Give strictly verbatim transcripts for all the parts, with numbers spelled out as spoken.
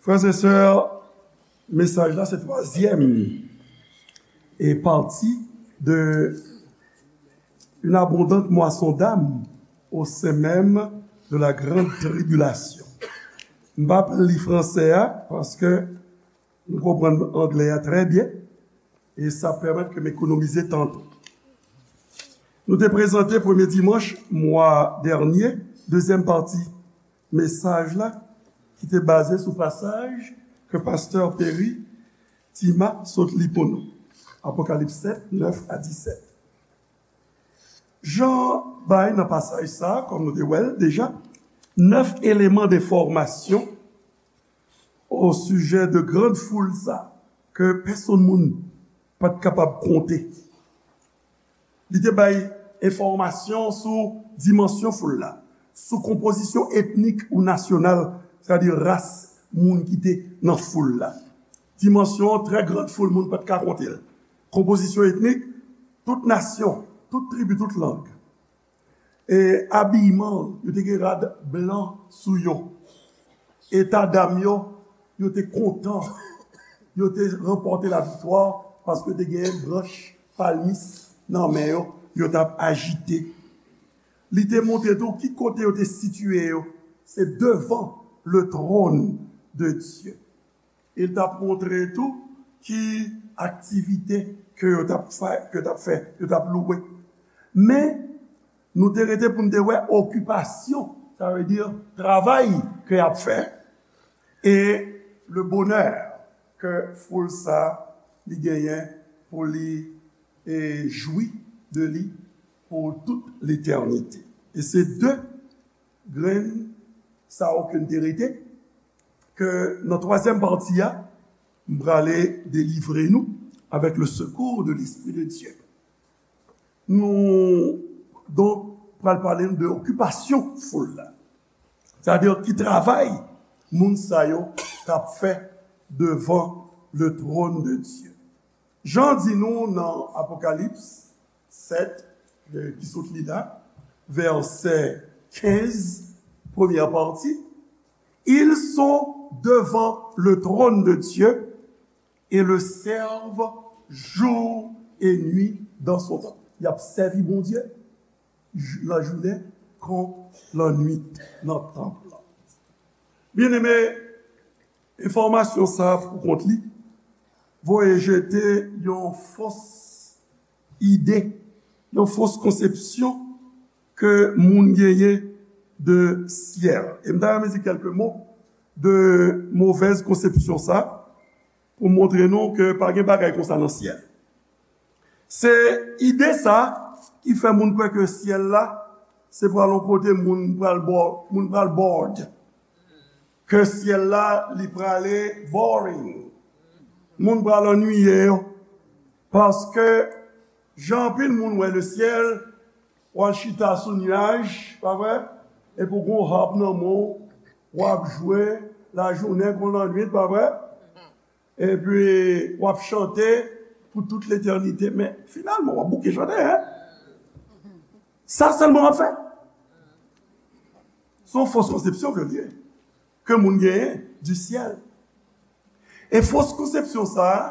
Frères et sœurs, mesaj la se twazyèm e pati de une abondante moisson d'âmes au sein même de la grande tribulation. M p ap li fransè a, paske nou konprann anglè a trè byen, e sa pèmèt ke m ekonomize tan tou. Nou te prezante premye dimanch mwa dènye dezyèm pati mesaj la, ki te baze sou pasaj ke pastè Perry Tima sot li pou nou. Apokalips sèt, nèf a disèt. Jan bay nan pasaj sa, kòm nou te wè l deja, nèf eleman de fòmasyon o sijè de grann foul sa, ke pèsonn moun pa t kapab konte. Li te bay enfòmasyon sou dimansyon foul la, sou konpozisyon etnik ou nasyonal, sètadi ras moun ki te nan foul la. Dimansyon trè grann foul moun pa t ka konte l. Konpozisyon etnik, tout nasyon, tout tribi, tout lang. E abiyman, yo te gen rad blan sou yo. Eta dam yo, yo te kontan. Yo te ranpòte laviktwa paske te gen branch palmis nan men yo, yo t ap ajite. Li te montre tou ki kote yo te sitiye yo. Se devan le trône de Dieu. E l t ap montre tou ki aktivite ke yo t ap fè, ke yo t ap fè, yo t ap louwe. Men, nou te rete pou n te wè okipasyon, sa vle di travay ke y ap fè, e le bonè ke foul sa li genyen pou li, e, jwi de li pou tout letènite. E se de grenn sa yo ke n te rete, ke nan twazyèm pati a, m prale delivre nou avèk le secours de l'Esprit de Dieu. Nou, donk, pral pale nou de okipasyon foul la. Sètadi ki travay moun sa yo t ap fè devan le trône de Dieu. Jan di nou nan Apokalips sèt, e, ki sot li la, vèsè kenz, premyè pati, ils sont devant le trône de Dieu et le servent jour et nuit dans son temple. Y ap sèvi Bondye jou, lajounen kon lannwit nan tanp lan. Byeneme, enfòmasyon sa a pou kont li voye jete yon fos ide, yon fos konsepsyon ke moun genyen de syèl. E m ta renmen di kèlke mo de movèz konsepsyon sa, pou montre nou ke pa gen bagay konsa nan syèl. Se ide sa ki fè moun kwè ke syèl la, se pral yon kote moun pral bò-, moun pral bored. Ke syèl la, li prale boring. Moun pral annuiye yo. Paske, jan anpil moun wè le syèl, w al chita sou nyaj, pa vre? Epi w gon harp nan men w, w ap jwe lajounen kon lannwit, pa vre? Epi w ap chante pou tout letènite, men finalman, w ap bouke chante, en? Sa sèlman w ap fè. Se yon fos konsepsyon ke l ye, ke moun genyen di syèl. E fos konsepsyon sa a,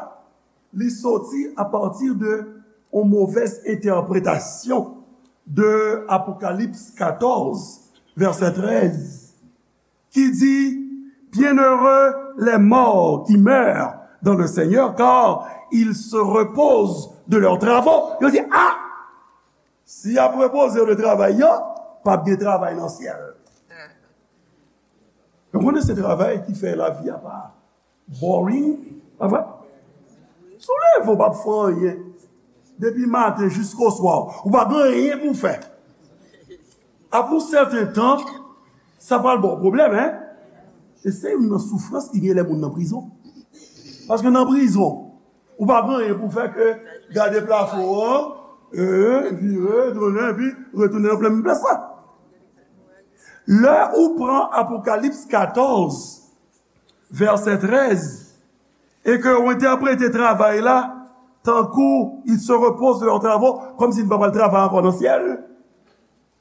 li soti apati de yon movèz entèpretasyon de Apokalips katòz, vèsè trèz, ki di, bienheureux les morts qui meurent dans le Seigneur, car ils se reposent de leurs travaux. Yo di, a! Si y ap repoze yo de travay yo, p ap gen travay nan syèl. Ou konnen se travay ki fè lavi a pa boring, pa vre? Si w leve, w p ap fè anyen. Depi maten jiskoswa, ou pa gen anyen pou w fè. Apre yon sèten tan, sa pral ba w pwoblèm, en? E se youn nan soufrans ki gen lè moun nan prizon. Paske nan prizon, ou pa gen anyen pou fè ke gade plafon an, e, vire, tounen, epi retounen nan plen menm plas la. Lè ou pran Apokalips katòz, vèsè trèz, e ke ou entèprete travay la tankou ils se reposent de leurs travaux, kòmsi n pa pral travay ankò nan syèl,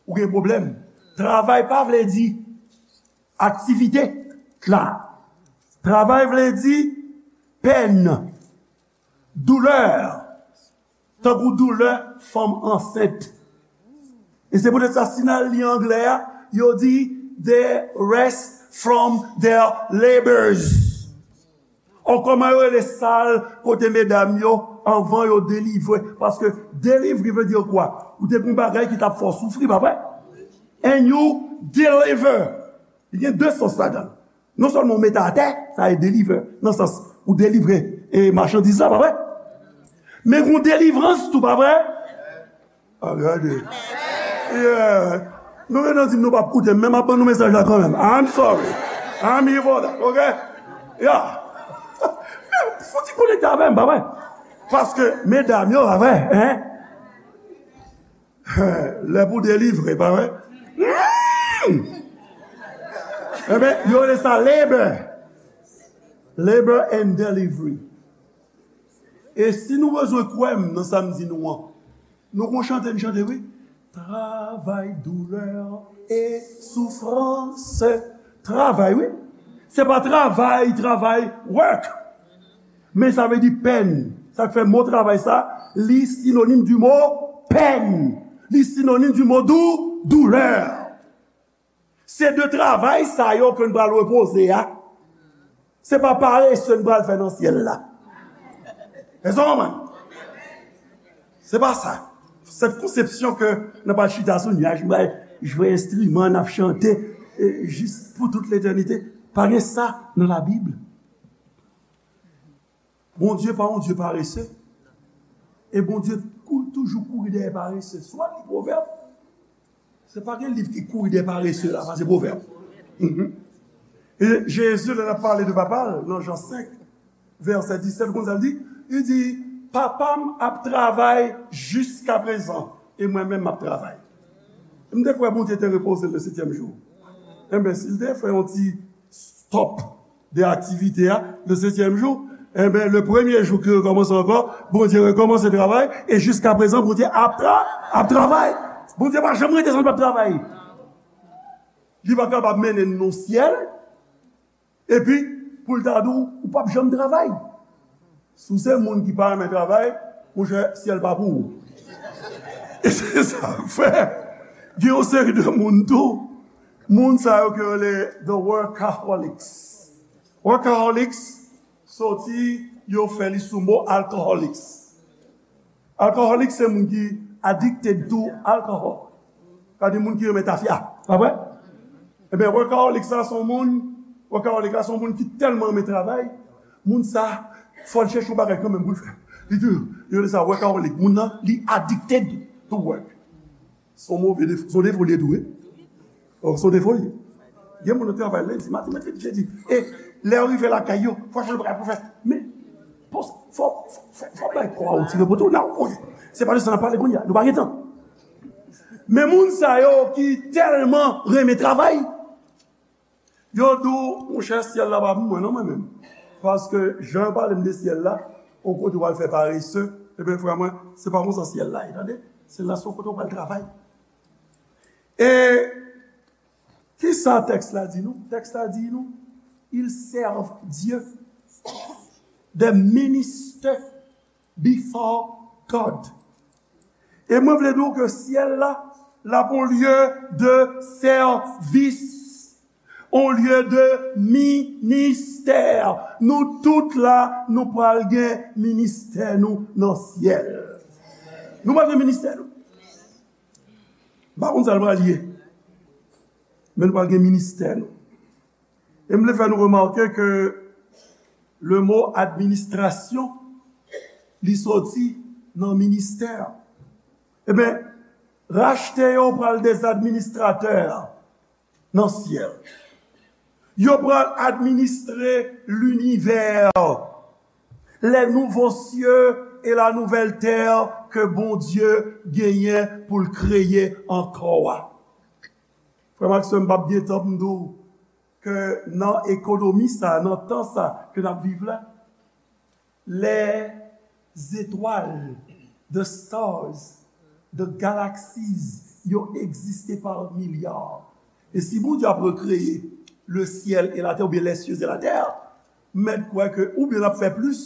ou gen pwoblèm. Travay pa vle di aktivite la. Travay vle di pèn, doulè, tankou doulè fanm ansent. E se poutèt sa, si n al li anglè a, yo di, they rest from their labors. Ò, kòman yo rele sal kote medam yo, anvan yo delivre? Paske delivery vle di kwa? Ou te gen yon bagay ki t ap fè w soufri, pa vre? And you deliver. Li gen de sans ladan l. Non sèlman w mete atè, sa e deliver, nan sans ou delivre e machandiz la, pa vre? Men gon delivrans tou, pa vre? A, gade. Yeah. Nou gen nan di m nou p ap koute m, men m ap ban nou mesaj la kanmenm. I'm sorry. I'm here for that, ok? Yeah. Men, fò ti konekte avè m, pa vre? Paske, medam yo, pa vre, hein? Lè pou delivre, pa vre? Enben, yo rele sa labor. Labor and delivery. E si nou bezwen kwè m nan sa m di nou an, nou gon chante n chante, wi. Travay, doulè e soufrans. Travay, wi. Se pa travay, travay, work. Men sa vle di pèn. Sa k fè mo travay sa, li sinonim di mo pèn. Li sinonim di mo dou, doulè. Se de travay sa yo ke n pral repoze a. Se pa parese n pral fè nan syèl la. Èske w konprann? Se pa sa. Cette conception que n ap al chita sou nyaj, n pral jwe enstriman, n ap chante, e, jis pou tout letènite. Pa gen sa nan Labib. Bondye pa yon Dye parese. E Bondye kou, toujou kouri dèyè parese. Si w al li Pwovèb, se pa gen liv ki kouri dèyè parese la, pase Pwovèb. Mhm. E Jezi, lè l ap pale de Papa l, nan Jan senk, vèsè disèt, konn sa l di? Li di, Papa m ap travay jiskaprezan, e mwen menm m ap travay. M te kwè Bondye te repoze l le setyèm jou. Enben, si l te fè yon ti stop de aktivite a, le setyèm jou, enben, le premye jou ki rekòmanse ankò, Bondye rekòmanse travay, e jiskaprezan, Bondye ap tra-, ap travay. Bondye pa janm rete san l p ap travay. Li pa kapab mennen n nan syèl, epi pou l ta di w, ou p ap janm travay. Si w se moun ki pa renmen travay, monchè, syèl pa pou ou. E se sa k fè, gen yon seri de moun tou, moun sa yo ke yo rele the workaholics. Workaholics, soti yo fè li sou mo alcoholics. Alcoholic se moun ki addicted to alcohol. Sa di moun ki renmen tafya. Pa vre? Ebyen, workaholic sa se yon moun, workaholic la se yon moun ki tèlman renmen travay, moun sa, fò l chèche yon bagay kanmenm pou l fè. Li di, yo rele sa workaholic. Moun nan, li addicted to work. Se yon move defo, se yon defo li ye tou, wi. Ò, se yon defo li ye. Gen moun nan travay lendi, madi, mèkredi, jedi. E lè yo rive lakay yo, fò chèche bagay pou fè. Men, fò, fò, fò, fò bay kò a yon ti repo tou. Nan, ok. Se pa de sa n ap pale kounye a. Nou pa gen tan. Men moun sa yo ki tèlman renmen travay, yo di w, monchè, syèl la pa pou mwen non, mwen menm. Paske jan yo pale m de syèl la, yon kote w al fè parese, ebyen, frè mwen, se pa konsa syèl la ye, tande? Syèl la se yon kote w pral travay. E kisa tèks la di nou? Tèks la di nou, ils servent Dieu. They minister before God. E mwen vle di w ke syèl la, l ap yon lye de sèvis, yon lye de ministè. Nou tout la, nou pral gen ministè nou nan syèl. Nou pral gen ministè nou. M pa konn sa l pral ye. Men nou pral gen ministè nou. E m vle fè nou remake ke le mo administration, li soti nan ministè. Ebyen, rachte yo pral des administrateurs nan syèl. Yo pral administre linivè, les nouveaux cieux et la nouvelle terre ke Bondye genyen pou l kreye ankò a. Frè m ak sè m, m p ap gen tan pou m di w ke nan ekonomi sa, nan tan sa ke n ap viv la, les étoiles, the stars, the galaxies, yo egziste pa milya. E si Bondye ap rekreye le ciel et la terre, oubyen les cieux et la terre, M mèt kwè ke oubyen l ap fè plis,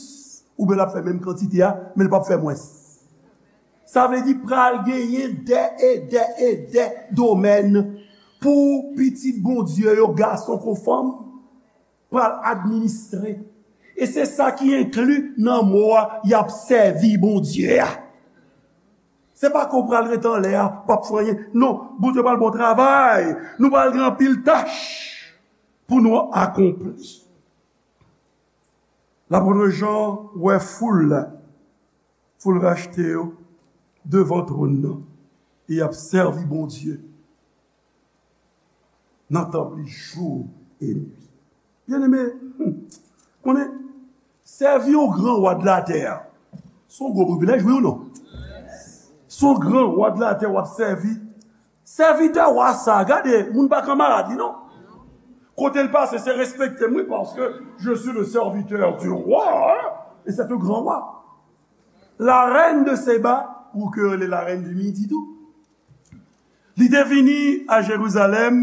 oubyen l ap fè menm kantite a, men l p ap fè mwens. Sa vle di pral genyen dè e dè e dè domèn pou pitit Bondye yo, gason kon fanm, pral administre. E se sa ki enkli nan mo a, y ap sèvi Bondye a. Se pa ke w pral ret anlè a, p ap fè anyen. Non, Bondye pral ba w travay. Nou pral gen anpil tach pou nou akonpli. Lapot Jan wè foul la, foul rachte yo, devan twòn nan, e y ap sèvi Bondye nan tanp li jou e nwi. Byeneme, hmm, konnen, sèvi yon gran wa de latè a, se yon gwo privilèj, wi ou non? Se yon gran wa de latè w ap sèvi. Sèvitè wa sa, gade, moun pa kanmarad li, non. Kote l pase, se respekte m, wi, paske je suis le serviteur du roi, hein, et c'est un grand roi. La reine de Seba, ou ke yo rele la reine du Midi tou. Li te vini a Jerizalèm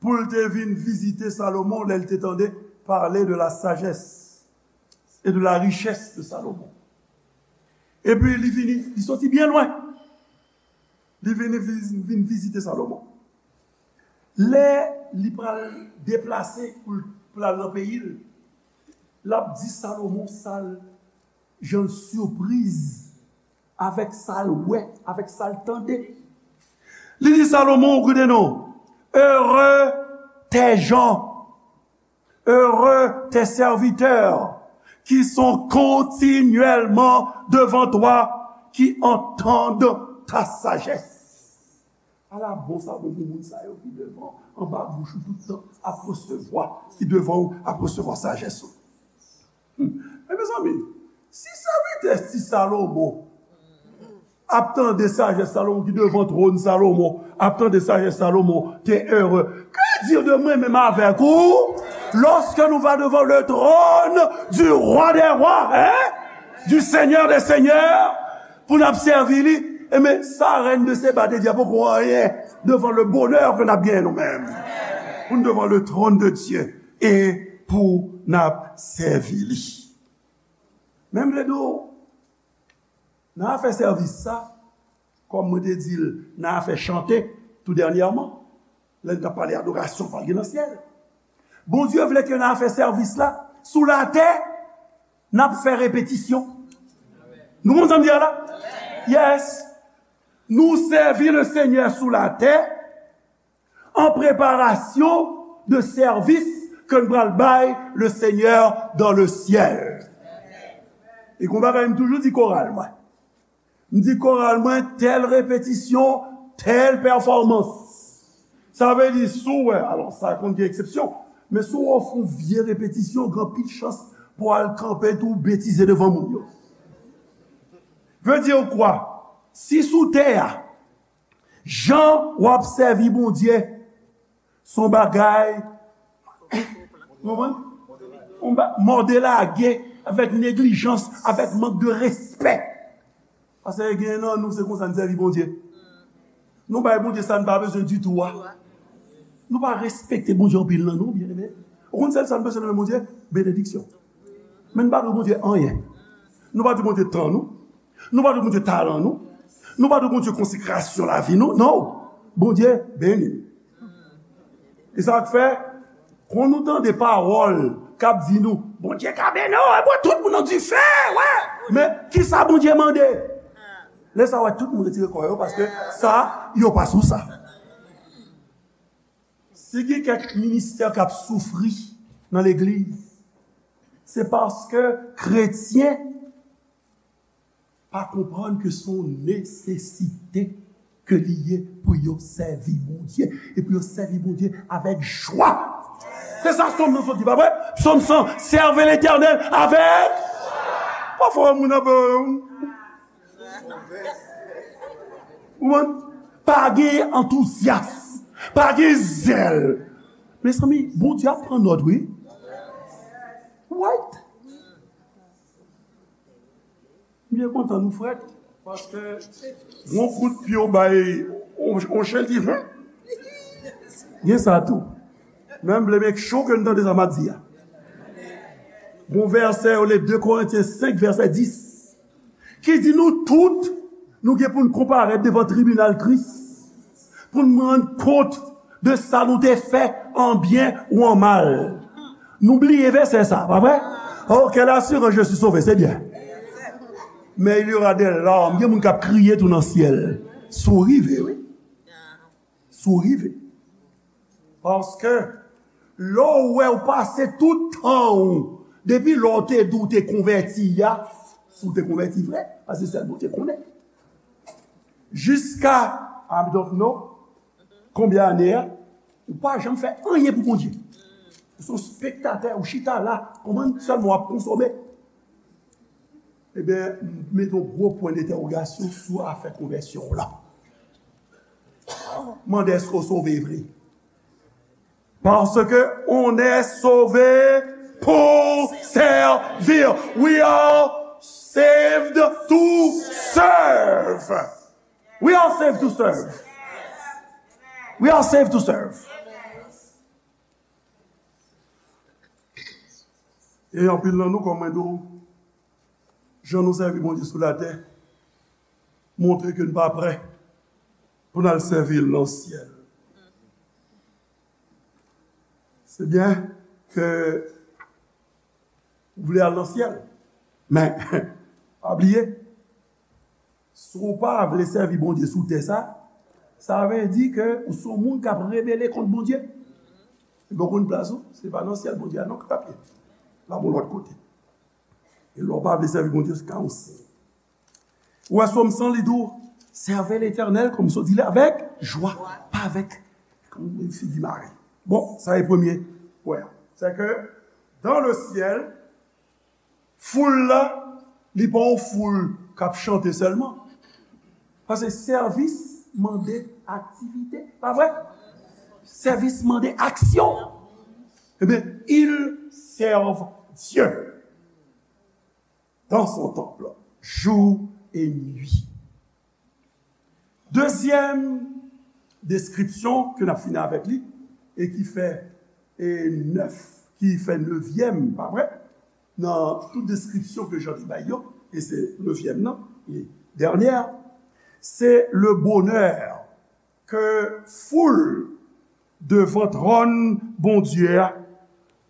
pou l te vin vizite Salomon lè l te tande pale de la sagesse et de la richesse de Salomon. Epi li vini, li soti byen lwen. Li vini viz- vin vizite Salomon. Lè li pral deplase pou l pral nan peyi l, l ap di Salomon sa l, jan l sipriz avèk sa l wè, avèk sa l tande. Li di Salomon, ou koute non, heureux tes gens, heureux tes serviteurs qui sont continuellement devant toi, qui entendent ta sagesse. Ala bon sa bon pou moun sa yo ki devan, anba bouch ou tout tan ap resevwa, ki devan ou ap resevwa sajès ou. Hmm. Men mezanmi, si sèvitè ti Salomon ap tande sajès Salomon, ki devan twòn Salomon, ap tande sajès Salomon, te ere. Que dire de mwen menm avèk ou, lorsque nous va devant le trône du roi des rois, hein? Du Seigneur des seigneurs, pou n ap sèvi li, enben, sa rèn de Seba te di a poko anyen devan le bonè ke n ap genyen nou menm. Pou n devan le tròn de Dye e pou n ap sèvi li. Men m vle di w, nan afè sèvis sa, kòm mwen te di l nan afè chante tou dènyèman, lè n t ap pale adorasyon pral gen nan syèl. Bondye vle ke nan afè sèvis la, sou latè, n ap fè repetisyon. Nou konn sa m di a la? Yes. Nou sèvi le Senyè sou latè an preparasyon de sèvis ke n pral bay le Senyè dans le ciel. E gon bagay m toujou di koral mwen. M di koral mwen, tèl repetisyon, tèl pèfòmans. Sa vle di, si w wè, alò, sa konn gen eksepsyon, men si w wè w fè yon vye repetisyon, gen anpil chans pou w al kanpe tou betize devan moun yo. Vle di kwa? Si sou tè a, jan w ap sèvi Bondye, se yon bagay, w konprann? Yon ba- mòde lage, avèk neglijans, avèk mank de respè. Paske gen nan nou, se konsa n sèvi Bondye. Nou bay Bondye sa n pa bezwen ditou a. Nou pa respekte Bondye anpil nan nou, byeneme. Ou konn sèl sa n bezwen nan men Bondye? Benediksyon. Men n pa dwe Bondye anyen. Nou pa dwe Bondye tan nou. Nou pa dwe Bondye talan nou. Nou pa dwe Bondye konsekrasyon lavi nou. Non. Bondye beni. E sa k fè, kon nou tande pawòl k ap di nou, Bondye ka beni w, e bon, tout moun nan dife, wè. Men, kisa Bondye mande? Lè sa, wè, tout moun retire kò yo, paske sa, yo pa sou sa. Si gen kèk ministè k ap soufri nan legliz, se paske kretyen pa konprann ke se yon nesesite ke li ye pou yo sèvi Bondye, e pou yo sèvi Bondye avèk jwa. Se sa Sòm nan sot di, pa vre? Sòm san, servez l'Éternel avec. Pafwa, moun ap, ou konprann? Pa gen antouzyas, pa gen zèl. Mezanmi, Bondye ap pran nòt, wi. Right? M byen kontan nou frèt, paske yon kout pye w bay yon, yon chen, l di, "Hen?" Gen sa tou. Men m vle make sure ke n tande sa m ap di a. Gon vèsè yo le de Korentyen senk, vèsè dis, ki di nou tout, nou gen pou n konparèt devan tribinal Kris, pou n rann kont de sa nou te fè, an byen ou an mal. Nou bliye vèsè sa, pa vre? Oh, quelle assurance, je suis sauvé, c'est bien. Mais il y aura des larmes, gen moun k ap kriye tou nan syèl. Si w rive, wi. Si w rive. Paske lè w wè w pase tout tan ou, depi lè w te di w te konvèti a, si w te konvèti vre, paske sèl Bondye konnen. Jiska, I don't know, konbyen ane a, ou pa janm fè anyen pou Bondye. Ou se yon spektatè, ou chita la, konprann, sèlman w ap konsome. Ebyen, m mete yon gwo pwen dentèwogasyon sou afè konvèsyon w lan. Mande èske w sove vre. Parce que on est sauvé pour servir. We are saved to serve. We are saved to serve. We are saved to serve. E anpil nan nou, kòm mwen di w, jan nou sèvi Bondye sou latè, montre ke n pa prè pou n al sèvi l nan syèl. Se byen ke ou vle al nan syèl, men pa bliye, si w pa vle sèvi Bondye sou tè sa, sa vle di ke ou se yon moun k ap rebele kont Bondye. E bon konn plas ou, se pa nan syèl Bondye a non k ap ye. L ap yon lòt kote. E lè w pa vle sèvi Bondye, se ka yon siy. Ou wè Sòm san, li di w, servez l'Éternel, kòm si w di l, avec joie, pa avèk yon figi mare. Bon, sa e premye pwen an. Se ke dans le ciel, foul la, li pa yon foul k ap chante sèlman. Paske sèvis mande aktivite, pa vre? Sèvis mande aksyon. Ebyen, ils servent Dieu dans son temple, jour et nuit. Dezyèm deskripsyon ke n ap fini avèk li, e ki fè, e nèf, ki fè nevyèm, pa vre? Nan tout deskripsyon ke Jan te bay yo, e se nevyèm nan, e dènyè, se le bonè ke foul devan twòn Bondye a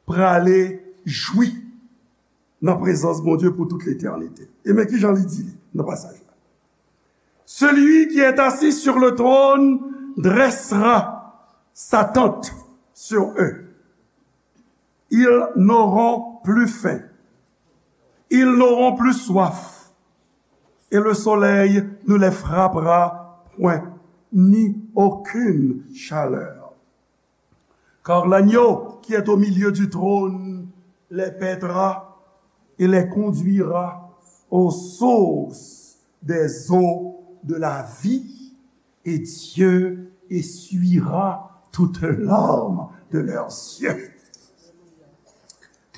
prale jwi nan prezans Bondye pou tout letènite. E men ki jan li di li nan pasaj la. Celui qui est assis sur le trône dressera sa tente sur eux. Ils n'auront plus faim. Ils n'auront plus soif. Et le soleil ne les frappera point, ni aucune chaleur. Car l'agneau qui est au milieu du trône les paîtra et les conduira aux sources des eaux de la vie, et Dieu essuiera toute larme de leurs yeux.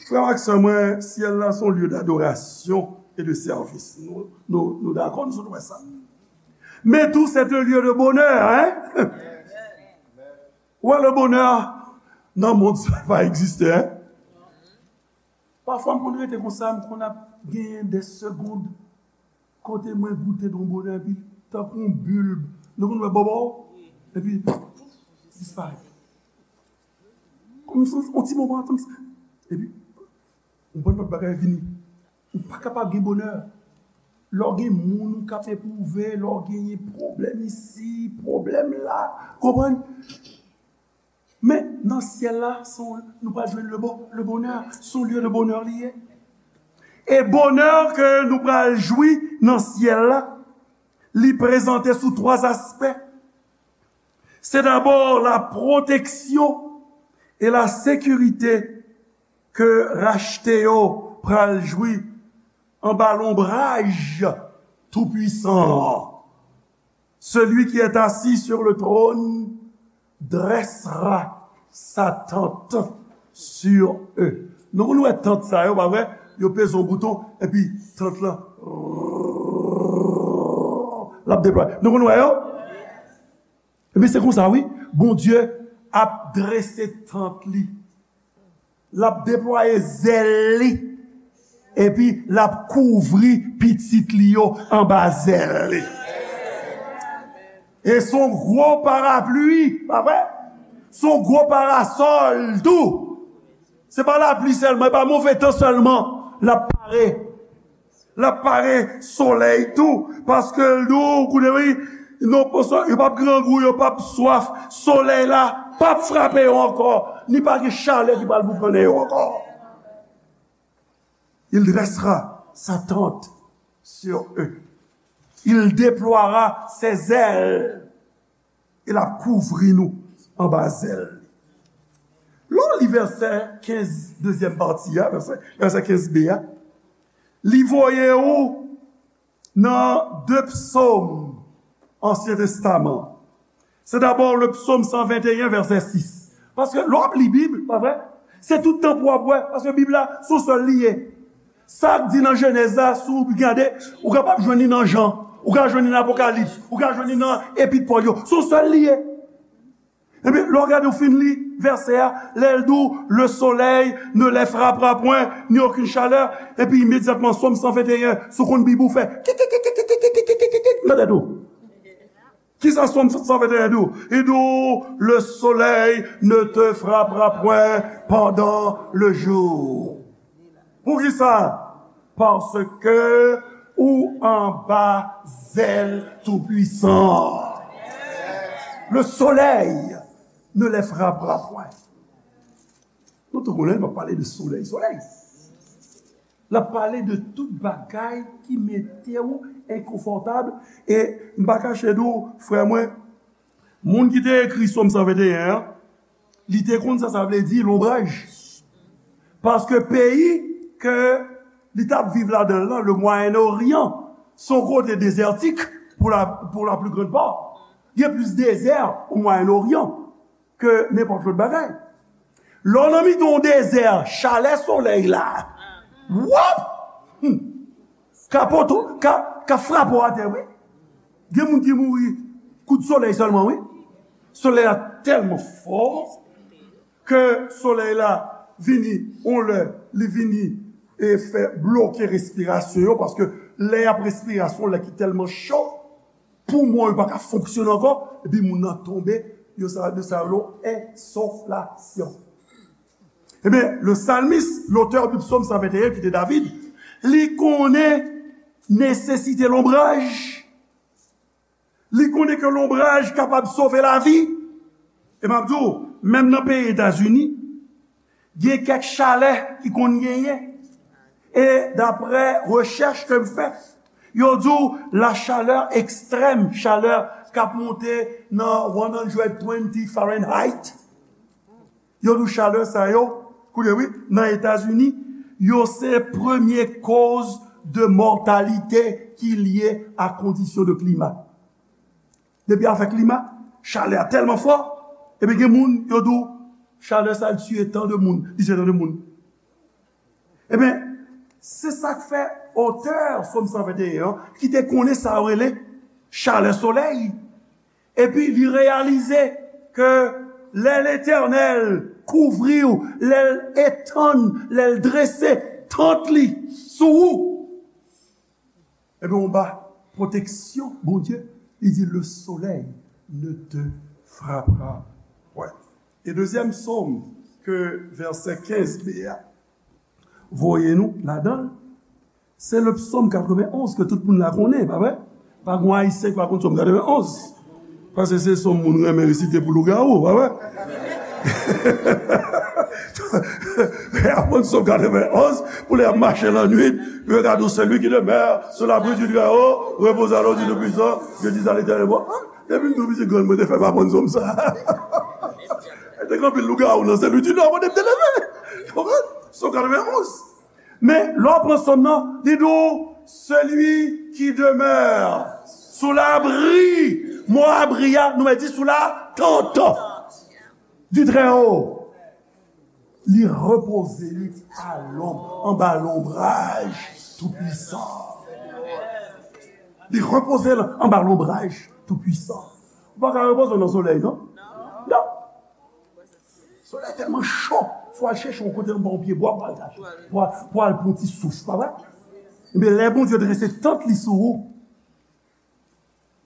Frè m ak sè mwen, syèl la se yon lye dadorasyon e de sèvis. Nou, nou, nou dakò, nou sot wè sa. Men tou, se yon lye de bonè, hein? Ou wè, le bonè nan mond sa pa egziste, hein? Pafwa, m konn rete konsa, m konn ap genyen de segond kote mwen goute yon bonè, epi tankou yon bil, nou konn wè bòbò, epi disparèt. Kòm si yon ti moman, kòm si, epi yon bann lòt bagay vini. Ou pa kapab gen bonè. Lè w gen moun ou k ap epwouve, lè w genyen pwoblèm isi, pwoblèm la, konprann? Men nan syèl la, se yon, nou pral jwenn le bo-, le bonè, se yon lye de bonè li ye. E bonè ke nou pral jwi nan syèl la, li prezante sou twa aspè. Se dabò la pwoteksyon e la sekirite ke rachte yo pral jwi anba lonbraj Toupwisan an. Celui qui est assis sur le trône dressera sa tente sur eux. Nou konn wè tant sa yo, pa vre? Yo peze yon bouton, epi tant lan, l ap deplwaye. Nou konn wè yo? Ebyen, se konsa, wi. Bondye ap drese tant li. L ap deplwaye zèl li. Epi l ap kouvri pitit li yo anba zèl li. E se yon gwo parapli, pa vre? Se yon gwo parasòl tou. Se pa lapli sèlman, e pa move tan sèlman. L ap pare. L ap pare solèy tou, paske l di w, koute wi, non, yo p ap grangou, yo p ap swaf, solèy la p ap frape yo ankò, ni pa gen chalè ki pral boukannen yo ankò. Il dressera sa tente sur eux. Il déploiera ses ailes. E l ap kouvri nou anba zèl li. Lè w li vèsè kenz, dezyèm pati a, vèsè, vèsè kenz b a, li voye ou nan de psòm Ansyen Testaman. Se dabò le psaume cent vingt et un, verset six. Paske lè w ap li Bib, pa vre? Se tout tan pou w ap wè, paske Bib la, se yon sèl li ye. Sa k di nan Jenèz la, si w gade, ou kapab jwenn li nan Jan, ou ka jwenn li nan Apokalips, ou ka jwenn li nan Epit Pòl yo. Se yon sèl li ye. Ebyen, lè w gade, w fin li vèsè a, lè l di w, le soleil ne les frappera point, ni aucune chaleur, epi imedyatman, Sòm san venteyen, si w konn Bib ou fè, kik, kik, kik, kik, kik, kik, kik, kik, kik, nan tèt ou. Kisa Sòm san venteyen di w? Li di w, le soleil ne te frappera point pendant le jour. Poukisa? Paske ou anba zèl Toupuisan. Le soleil ne les frappera point. Nou tou konnen, nou pale de solèy, solèy. L ap pale de tout bagay ki mete w enkonfòtab. E m pa kache di w, frè mwen, moun ki te ekri Sòm san venteyen an, li te konn sa sa vle di lonbraj. Paske peyi ke li t ap viv ladan l lan, le Mwayen Oryan, se yon kote dezètik pou la, pour la plus grande part. Gen plis dezè o Mwayen Oryan ke nenpòt lòt bagay. Lè w nan mitan yon dezè, chalè solèy la, wòp! Hmm. Ka poto, ka, ka frape w atè, wi. Gen moun ki mouri kout solèy sèlman, wi. Solèy la tèlman fò ke solèy la vini, yon lè, li vini e fè bloke respirasyon yo, paske lè y ap respire a, se yon lè ki tèlman cho, poumon yo pa ka fonksyone ankò, epi moun nan tonbe, yo sa, yo sa rele ensoflasyon. Ebyen, le salmis, lotè de Sòm san venteyen, ki te David, li konnen nesesite lonbraj. Li konnen ke lonbraj kapab sove lavi. E m ap di w, menm nan peyi Etazini, gen kèk chalè ki konn genyen. E daprè rechèch ke m fè, yo di w la chaleur extrême, chalè k ap monte nan one hundred twenty Fahrenheit. Yo di w chalè sa yo, koute wi, nan Etazini, yo se premye koz de mòtalite ki lye a kondisyon de klima. Depi afè klima, chalè a tèlman fò, epi gen moun, yo di w, chalè sa l tiye tan de moun, li tiye tan de moun. Ebyen, se sa k fè otè Sòm san venteyen an, ki te konnen sa yo rele chalè solèy, epi li reyalize ke lè Letènèl kouvri w, lè l etann, lè l drese tant li sou ou, ebyen, anba pwoteksyon Bondye, li di, le soleil ne te frappera point. E dezyèm sòm ke vèsè kenz b a voye nou ladan l, se le psaume quatre-vingt-onze ke tout moun la konnen, pa vre? Pa gen Ayisyen ki pa konn sòm quatre-vingt-onze. Paske se sòm moun renmen resite pou lougawou, pa vre? Aprann Sòm quatre-vingt-onze, pou lè y ap mache lannwit, yo ka di w, celui qui demeure sous l'abri du Très-Haut repose à l'ombre du Tout-Puissant, je dis à l'Éternel, bon, ah, depi m tou piti grann, mwen te fè m aprann sòm sa. Te gen anpil lougawou nan Sen Lwi di Nò, kote m te leve. Konprann? Sòm quatre-vingt-onze. Men, lè w pran sòm nan, li di w, celui qui demeure sous l'abri, mo abri a, nou mèt di sous la tente du Très-Haut. Li repoze li à l'ombre, anba lonbraj Toupuisan. Li repoze l anba lonbraj Toupuisan. Ou pa ka repoze w nan solèy, non? Non. Solèy tèlman cho. Fò al chèche yon kote anba yon pyebwa pou al kache. Pou al, pou al pran ti souf, pa vre? Ebyen, lè Bondye drese tant li sou ou,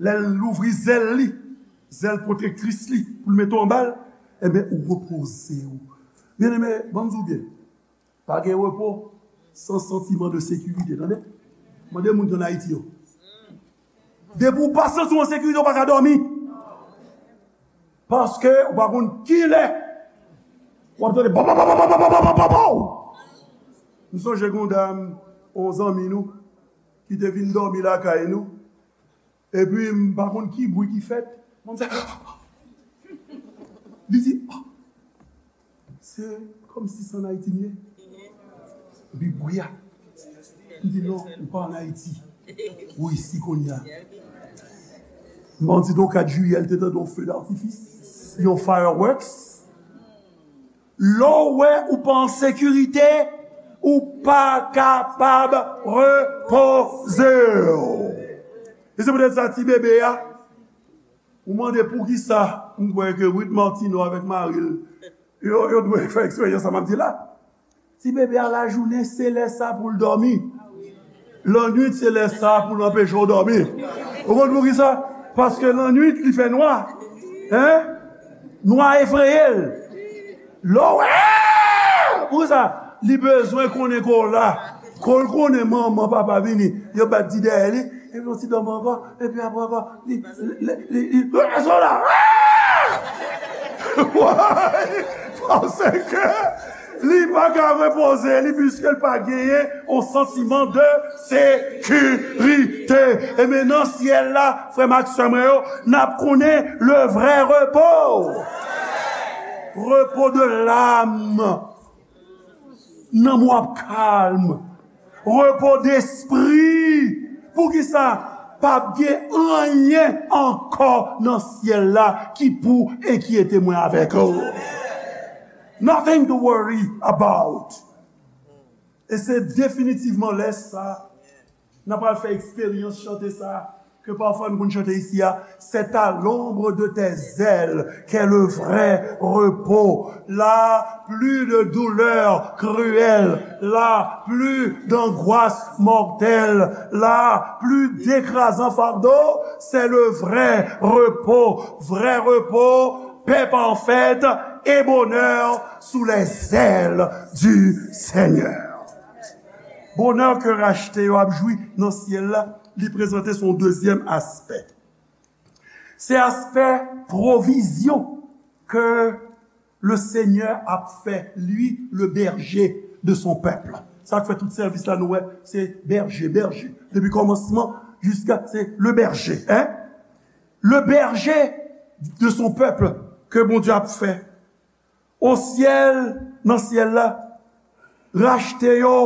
lè l louvri zèl li, zèl pwotektris li, pou l mete w anba l, ebyen, ou repoze w. Byeneme, ban m di w byen, pa gen repo san santiman de sekirite, tande? Mande moun ki ann Ayiti yo. Depi w pa santi w an sekirite, w pa ka dòmi. Paske ou pa konn kilè w ap tande pa, pa, pa, pa, pa, pa, pa, pa, pa, pa. M sonje gen yon dam, yon zanmi nou, ki te vin dòmi lakay nou. Epi m pa konn ki bri ki fèt. Mwen se, li di, "Ah, se kòmsi se ann Ayiti m ye." Epi bri a. M di, "Non, ou pa ann Ayiti. Ou isi kounye a." M di, "Donk, kat jiyè, l te tande yon feu d'artifice, yon fireworks." Lè w wè ou pa an sekirite, ou pa kapab repoze w. E se poutèt sa, ti bebe a, ou mande poukisa, m kwè ke Ruth Martineau avèk mari l, yo, yo dwe fè eksperyans sa m ap di la. Ti bebe a lajounen, se lè sa pou l dòmi. Lannwit, se lè sa pou l anpeche w dòmi. Ou konn poukisa? Paske lannwit, li fè nwa. Hein? Nwa efreye l. Lè w wè, poukisa? Li bezwen konnen ke w la. Kon l konnen manman, papa vini, yo bat di dèyè li, epi yon ti dòmi ankò, epi apre ankò, li, li, li, li, li, li, li, Why? Paske li pa ka repoze li, piske l pa genyen yon santiman de sekirite. E men nan syèl la, frè m ak sè mwen yo, n ap konnen le vrè repo. Repo de l'âme. Nanm w ap kalm. Repo despri. Poukisa? P ap gen anyen ankò nan syèl la ki pou enkyete mwen avèk ou. Nothing to worry about. E se definitivman lè sa n ap al fè eksperyans chante sa ke pafwa nou konn chante isi a, c'est à l'ombre de tes ailes qu'est le vrai repos. Là, plus de douleurs cruelles. Là, plus d'angoisse mortelle. Là, plus d'écrasant fardeau. C'est le vrai repos. Vrai repos, paix parfaite et bonheur sous les ailes du Seigneur. Bonè ke rachte yo ap jwi nan syèl la, li prezante son dezyèm aspè. Se aspè pwovizyon ke le Seigneur ap fè, lui, le berger de son peuple. Sa k fè tout sèvis la, nou wè, se bèje, bèje. Depi kòmansman jiska, se le berger, hein? Le berger de son peuple ke Bondye ap fè. O syèl, nan syèl la, rachte yo,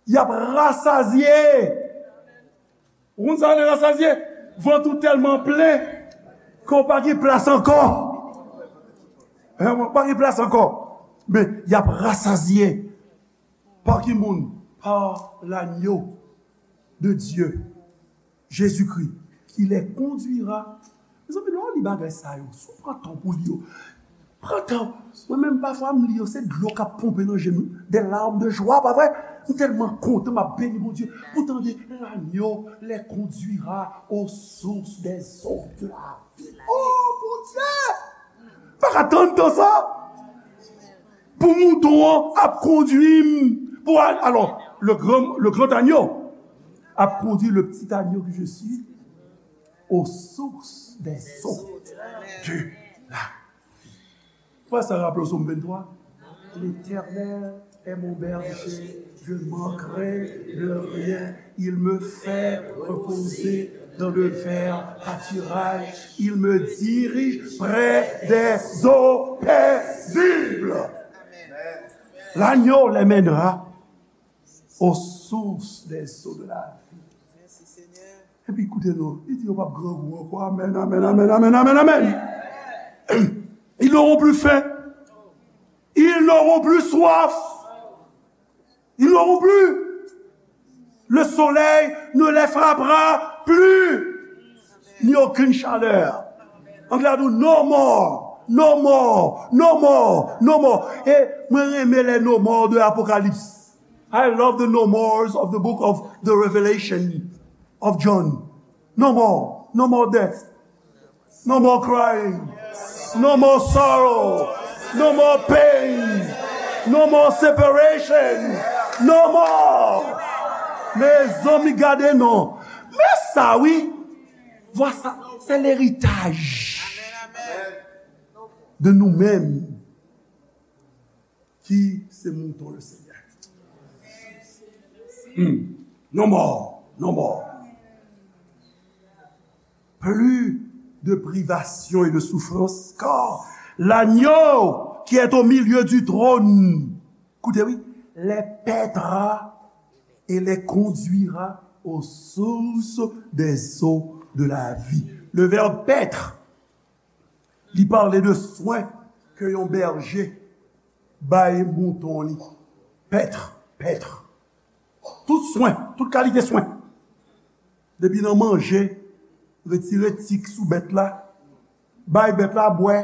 y ap rasazye. Ou konn sa w rele rasazye? Vant ou tèlman plen ke w pa gen plas ankò. Hein, w pa gen plas ankò. Men, y ap rasazye. Pa ki moun? Pa l'agneau de Dieu, Jésus-Christ, qui les conduira. Mezanmi, lè w li bagay sa yo, si w pran tan pou li yo, pran tan. Mwen menm, pafwa, m li yo, se dlo k ap ponpe nan je m, des larmes de joie, pa vre? M tèlman kontan, m ap beni Bondye pou tande, l'agneau les conduira aux sources des eaux de la vie. Oh, Bondye! Pa ka tann tan sa. Pou mouton an ap kondui m pou al, alò, le grand, le grand agneau ap kondui le petit agneau que je suis aux sources des eaux de la vie. Pou sa raple w Sòm venntwa, L'Éternel est mon berger, je ne manquerai de rien. Il me fait reposer dans de verts pâturages. Il me dirige près des eaux paisibles. L'agneau les mènera aux sources des eaux de la vie. Epi koute non, li di yo p ap grangou ankò. Amèn, amèn, amèn, amèn, amèn, amèn, amèn. Ils n'auront plus faim. Ils n'auront plus soif. Ils n'auront plus. Le soleil ne les frappera plus. Ni aucune chaleur. Anglè a di, no more. No more, no more, no more. E mwen renmen lè no more de Apokalips. I love the no mores of the book of the Revelation of John. No more, no more death. No more crying. No more sorrow. No more pain. No more separation. No more. Mezanmi, gade non. Men sa wi. Vwa sa, se leritaj de nou menm ki se mouton le Senyè. Hmm. No more, no more. Plus de privation et de souffrance, car l'agneau qui est au milieu du trône, écoutez, oui, les paîtra et les conduira aux sources des eaux de la vie. Le verbe paître, li pale de swen ke yon bèje bay mouton li. Pèt, pèt. Tout swen, tout kalite swen. Depi nan manje, retire tik sou bèt la, bay bèt la bwè.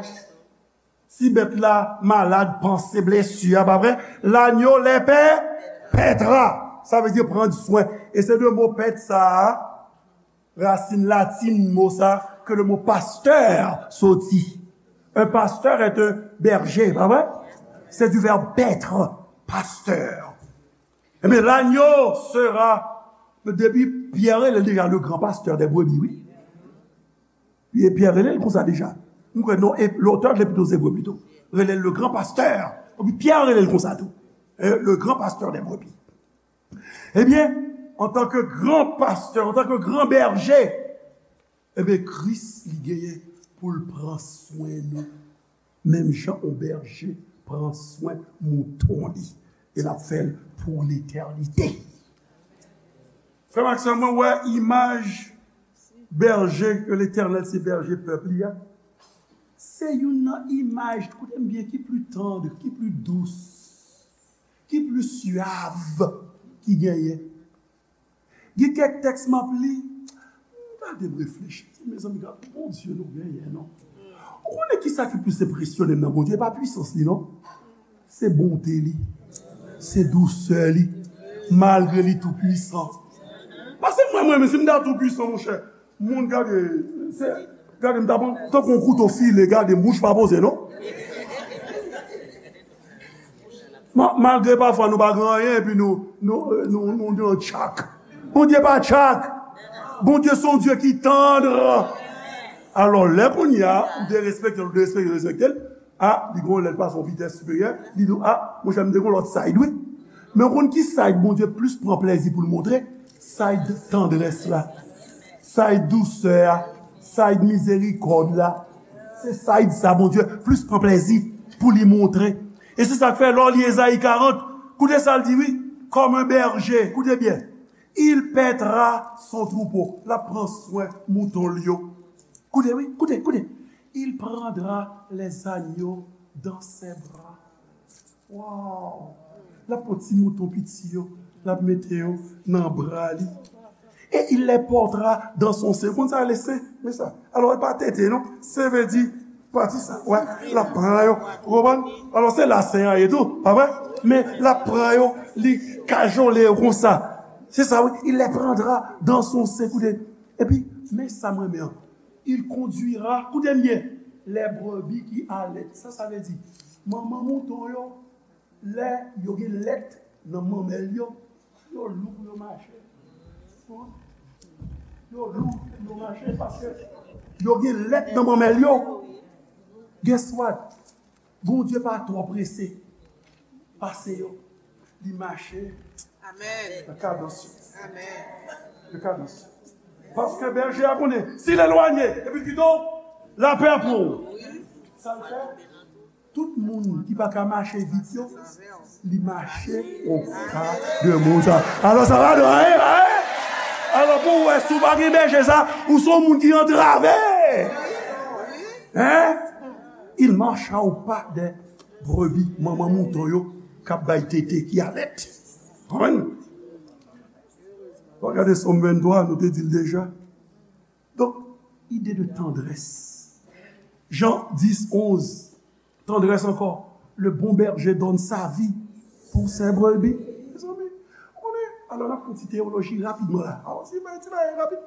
Si bèt la malad, panse blesi a, pa vre? L'agneau les paî-, paîtra. Sa vle di pran swen. E se de mo pèt sa a, rasin latin mo sa, ke le mo pasteur soti. Un pasteur est un berger, pa vre? C'est du verbe paître, pasteur. Ebyen, l'agneau sera, depi Pyè rele l deja le grand pasteur des brebis, wi. Wi, e Pyè rele l konsa deja. M kwè non, e lotè de l'Épître aux Hébreux pito. Rele l le grand pasteur. Epi Pyè rele l konsa tou. Eh, le grand pasteur des brebis. Ebyen, antanke gran pastè, antanke gran bèje, ebyen, Kris li genyen pou l pran swen nou. Menm jan yon bèje pran swen mouton li. E l ap fè l pou letènite. Frè m ak sè m, mwen wè imaj bèje ke Letènèl se bèje pèp li a. Se youn nan imaj, koute m byen, ki pli tann, ki pli dous, ki pli syav ki genyen. Gen kèk tèks m ap li, gade m reflechi, mezanmi, gade Bondye nou genyen, non. Ou konnen kisa ki plis enpresyone m nan Bondye? E pa pwisans li, non. Se bonte li. Se dousè li. Malgre li tou pwisan. Paske mwen, mwen, menm si m ta tou pwisan, monchè, moun gade, se, gade m ta pran, tankou yon kouto file, gade m, bouch pa poze, non. Ma-, malgre pafwa nou pa gen anyen, epi nou, nou, nou, nou, nou tchak. Bondye pa tchak. Bondye se yon Dye ki tann. Alò, lè kounye a, ou derespekte l, ou derespekte, derespekte l, a, li gon lè l pase yon vitès siperyè, li di w, a, monchè, m te gon lòt side, wi. Men w konn ki side Bondye plis pran plezi pou l montre? Side tandrès la. Side dousè a. Side mizerikòd la. Se side sa Bondye plis pran plezi pou li montre. E se sa k fè lè w li Ezayi karant, koute sa l di, wi, comme un berger, koute byen, il paîtra son troupeau, l ap pran swen mouton l yo. Koute, wi, koute, koute. Il prendra les agneaux dans ses bras. Wow! L ap pran ti mouton piti yo, l ap mete yo nan bra li. Et il les portera dans son sein. Ou konn sa rele sen? Men sa. Alò, e pa tete, non. Sen vle di pati sa. Wè, l ap pran yo. Ou konprann? Alò, se la sen an ye tou, pa vre? Men l ap pran yo, li kajole yo konsa. Se sa, wi. Il les prendra dans son sein. Koute. Epi, men sa m renmen an. Il conduira, koute m byen, les brebis qui allaient. Sa sa vle di? Manman mouton yo, lè yo gen lèt nan manmèl yo, yo lou pou yo mache. Yo lou pou yo mache paske yo gen lèt nan manmèl yo. Guess what? Bondye pa twò prese pase yo. Li mache nan kadans yo. Nan kadans yo. Paske bèje a konnen, si l elwanye, epi l kite w, lapè pou ou. Sa l fè? Tout moun ki pa ka mache vit yo, li mache o pa de moun sa. Alò, sa va de, hein, hein? Alò, pou w wè, si w pa gen bèje sa, ou se yon moun ki antrave. Hein? Il marche au pas des brebis, manman mouton yo k ap bay tete, ki alèt. Konprann? Ou gade Sòm venntwa, nou te di l deja. Donk, ide de tandrès. Jean dix, onze. Tendresse encore. Le bon berger donne sa vie pour ses brebis. Mezanmi, ou konnen, alò n ap fè yon ti teyoloji rapidman la. Awa, ti bagay, ti bagay rapid.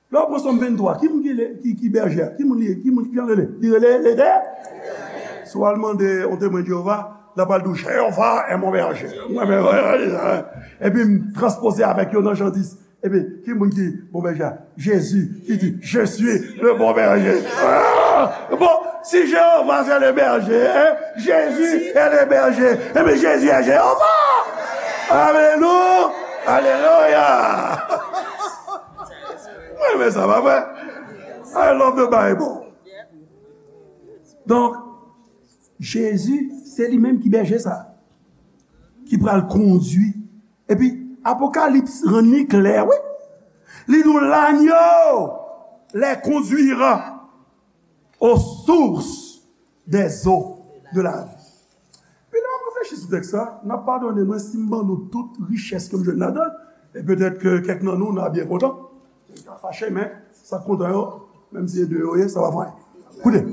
Lè w pran Sòm venntwa, ki moun ki, ki, ki bèje a? Ki moun li ye? Ki moun ki jan rele? Li rele Letè-, Si w al mande yon Temwen Jewova, l ap al di w, Jewova est mon berger. Mwen menm, epi m transpoze avèk yo nan Jan dis. Epi, ki moun ki bon bèje a? Jezi, ki di, Je suis le bon berger. Ah! Bon, si Jewova se le berger, hein, Jésus est le berger. Epi Jezi e Jewova. Alelouya! Alelouya! Mwen renmen sa, pa vre? I love the Bible. Donk, Jezi, se li menm ki bèje sa, ki pral kondui. Epi, Apokalips rann li klè, wi. Li di w, L'agneau les conduira aux sources des eaux de la vie. Pi lè w ap reflechi sou tèks sa, n ap padone mwen si m ban nou tout richès ke m jwenn ladan l, e petèt ke kèk nan nou, n a byen kontan. N ka fache, men sa k kontan yo, menm si se de yo ye, sa pa fè anyen. Koute.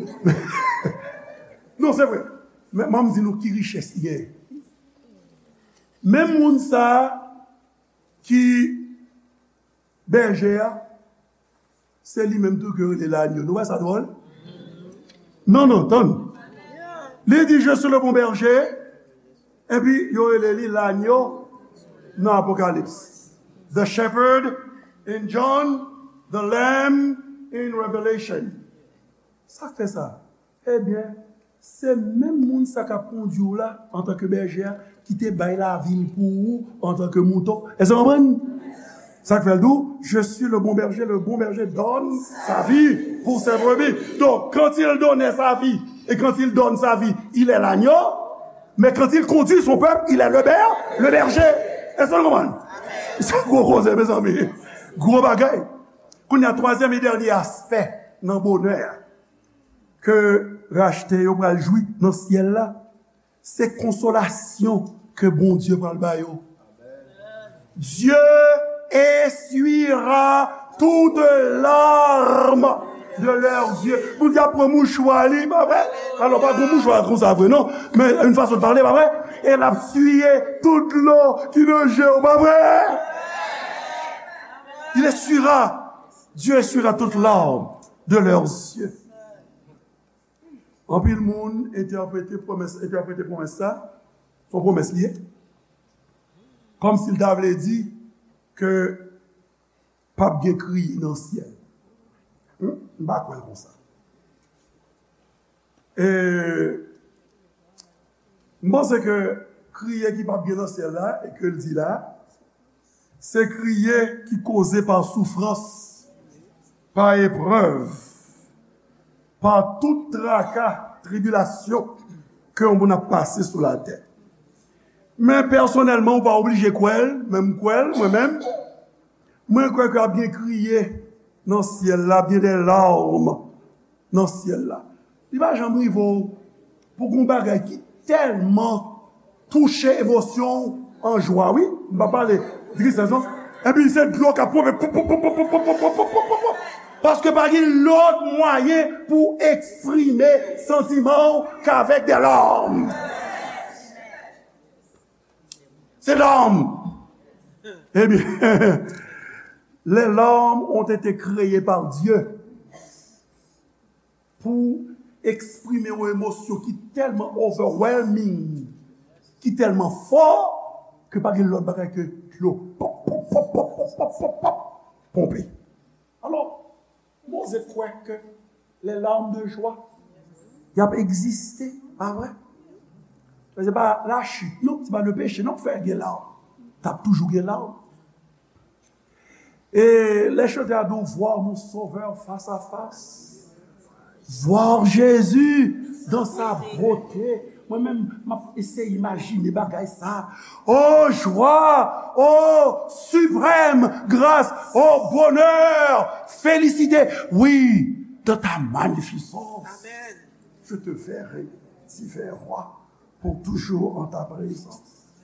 Non, se vre. Men, men m di nou ki richès li genyen. Menm moun sa a ki bèje a, se li menm tou ke yo rele lagno. Nou wè sa dwòl? Non, non, tann. Li di, Je suis le bon berger, epi yo rele li lagno nan Apokalips. The shepherd in John, the lamb in Revelation. Sa k fè sa? Ebyen, se menm moun sa k ap kondui w la, antanke bèje a, ki te bay lavi l pou ou, antanke mouton. Èske w konprann? Sa k fè l di w, Je suis le bon berger, le bon berger donne sa vie pour ses brebis. Donc, quand il donnait sa vie, et quand il donne sa vie, il est l'agneau, mais quand il conduit son peuple, il est le ber-, le berger. Èske w konprann? Se gwo koze, mezanmi. Gwo bagay. Kounye a, twazyèm e dènye aspè nan bonè a ke rachte yo pral jwi nan syèl la, se konsolasyon ke Bondye pral ba yo. Dieu essuiera toute larme de leurs yeux. Bondye ap pran mouchwa li, pa vre? Alò, pa gen mouchwa konsa vre, non. Men, yon fason de pale, pa vre? E l ap siye tout dlo ki nan je w, pa vre? Il essuiera, Dieu essuiera toute larme de leurs yeux. Anpil moun entèprete pwomès, entèprete pwomès sa, se yon pwomès li ye, kòmsi l ta vle di ke p ap gen kriye nan syèl. Hmm? M pa kwè l konsa. E m panse ke kriye ki p ap gen nan syèl la, e ke l di la, se kriye ki koze pa soufrans, pa eprèv, pa tout traka, tribilasyon ke yon moun ap pase sou latè. Men pèsonèlman, ou pa oblije kwè l, men m kwè l, mwen menm. Mwen kwè ke ap gen kriye nan syèl la, ap gen de lawm nan syèl la. Li pa janm rive w pou gen yon bagay ki tèlman touche emosyon w an jwa, wi. M pa pale tristès, non. Epi se dlo k ap ponpe, pop, pop, pop. Paske pa gen lòt mwayen pou eksprime santiman w k avèk de lawm. Se lawm. Ebyen, les larmes ont été créées par Dieu pou eksprime yon emosyon ki tèlman overwhelming, ki tèlman fò, ke pa gen lòt bagay ke dlo. Pop, pop, pop, ponpe. Alò, Moze kwè ke les larmes de joie, y ap egziste, pa vre? Men se pa la chute, non, se pa le péché, non, k fè gen lawm. T ap toujou gen lawm. E lè chante a di w, Voir mon Sauveur face à face. Voir Jésus dans sa beauté. Mwen menm, m ap eseye imajine bagay sa. Oh joie, oh suprême grâce, oh bonheur, félicité, oui, dans ta magnificence. Amen. Je te verrai divin roi, pour toujours en ta présence.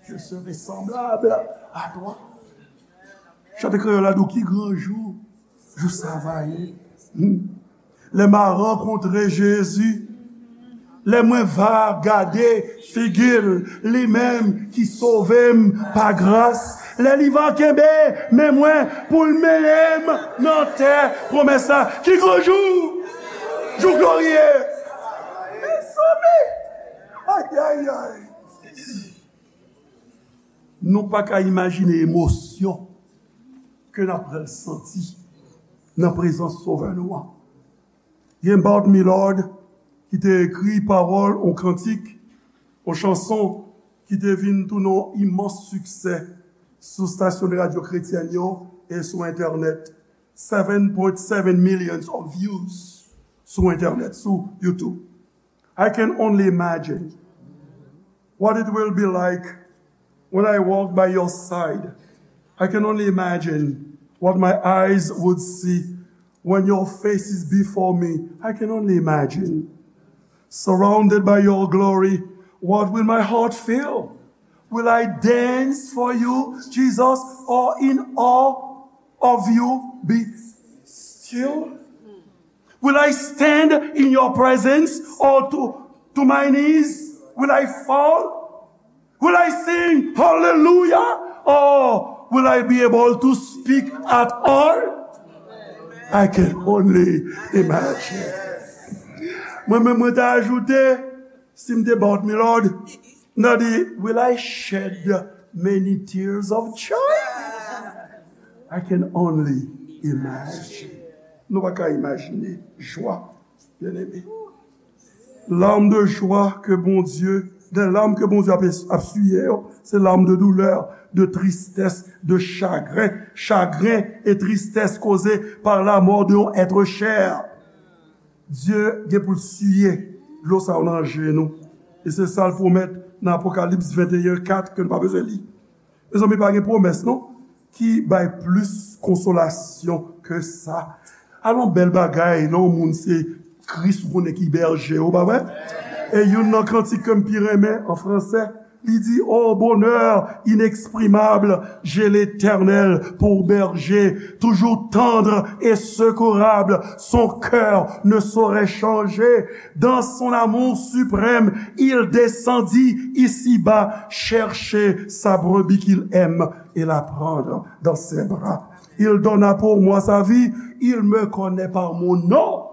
Je serai semblable à toi. Chante kreyòl la di w, ki gran jou, jou sa va ye. Hmm. Lè m a rankontre Jezi, lè mwen va gade figi l, li menm ki sove m pa gras, lè li va kenbe men mwen pou l mennen m nan tè pwomès la, ki gran jou! Jou glorye! Mezanmi! Ayayay! Nou pa ka imajine emosyon ke n ap pral santi nan prezans Sovè nou an. Gen Bart Millard ki te ekri pawòl yon kantik, yon chanson ki te vin tounen yon imans siksè sou stasyon de radyo kretyèn yo e sou entènèt. Seven point seven millions of views sou entènèt, sou YouTube. I can only imagine what it will be like when I walk by your side. I can only imagine what my eyes would see when your face is before me. I can only imagine. Surrounded by your glory, what will my heart feel? Will I dance for you, Jesus, or in awe of you be still? Will I stand in your presence or to, to my knees? Will I fall? Will I sing hallelujah or will I be able to speak at all? I can only imagine. Mwen menm mwen ta ajoute, si m te Bart Millard, m ta di, will I shed many tears of joy? I can only imagine. Nou pa ka imajine jwa, byeneme. Larmes de joie que Bondye, des larmes que Bondye ap, ap siye yo, se larmes de douleur, de tristesse, de chagrin, chagrin et tristesse causée par la mort de yon être cher. Dye gen pou l siye dlo sa yo nan je nou. E se sa l pwomèt nan Apokalips venteyen kat ke nou pa bezwen li. Mezanmi, pa gen pwomès non ki bay plis konsolasyon ke sa. Alon bèl bagay lè yon moun se Kris ou konnen ki bèje ou, pa vre? E youn nan kantik ke m pi renmen an fransè, li di, oh bonheur inexprimable, j'ai l'Éternel pour berger, toujours tendre et secourable, son cœur ne saurait changer. Dans son amour suprême, il descendit ici-bas chercher sa brebis qu'il aime et la prendre dans ses bras. Il donna pour moi sa vie, il me connaît par mon nom.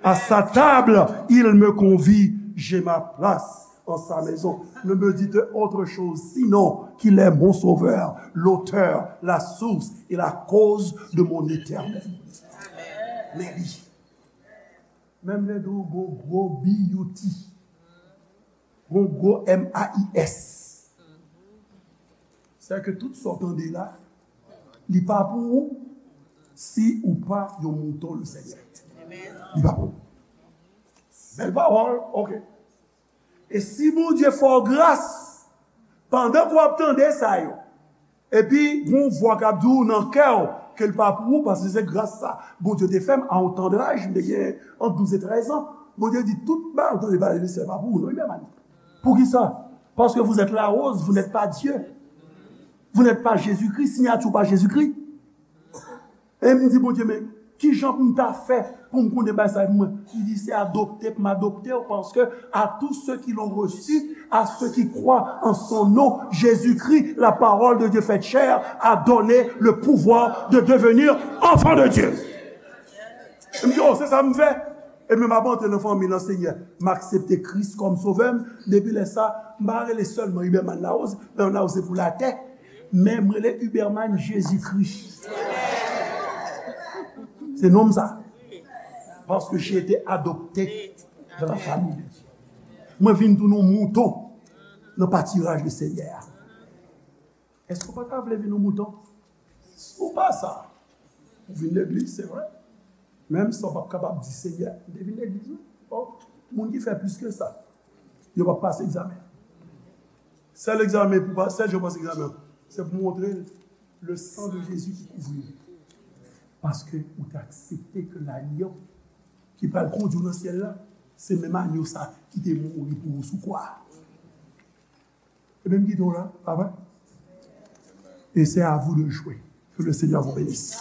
À sa table, il me convie, j'ai ma place en sa maison. Ne me dites autre chose, sinon qu'il est mon sauveur, l'auteur, la source et la cause de mon éternel. Men li, menm lè tou gon gwo B U T, gon gwo M A I S. Sèke tout sa w tande la, li pa pou ou si ou pa yon mouton Lesenyè. Li pa pou ou. Bèl pawòl, ok. E si Bondye fè w gras, pandan ke w ap tande sa yo, epi gon vwa k ap di w nan kè w ke l pa pou ou, paske se gras sa Bondye te fè m a yon tandaj, m te gen ant douz e trèz an. Bondye di, tout bagay ou tande pale de syèl pa pou ou non, Iberman. Poukisa? Parce que vous êtes la rose, vous n'êtes pas Dieu. Vous n'êtes pas Jésus-Christ, siyati w pa Jezikri. E m di Bondye, men kijan pou m ta fè pou m konnen bagay sa pou mwen? Li di, se adopte pou m adopte w, paske à tous ceux qui l'ont reçu, à ceux qui croient en son nom, Jésus-Christ, la parole de Dieu faite chair, a donné le pouvoir de devenir enfant de Dieu. M di, oh, se sa m fè. Epi m ap antre nan fanmi nan Senyè. M aksepte Kris kòm sovè m. Depi lè sa, m pa rele sèlman Iberman Larose, Iberman Larose se pou latè. Men m rele Iberman Jezikri. Se non m sa. Parce que j'ai été adopté dans la famille de Dieu. Mwen vin tounen yon mouton nan patiraj de Senyè a. Èske w pa ta vle vin yon mouton? Si w pa sa, ou vin legliz, se vre. Menm sa w p ap kapab di Senyè, m te vin legliz wi. Bon, moun ki fè plis ke sa, yo p ap pase egzamen. Sèl egzamen pou pa, sèl jan w pase egzamen an, se pou montre l le sang de Jésus qui couvre. Paske ou te aksepte ke lagnon ki pral kondui w nan syèl la, se menm agno sa ki te mouri pou ou sou kwa a. Ebyen m kite w la, pa vre? Et c'est à vous de jouer. Que le Seigneur vous bénisse.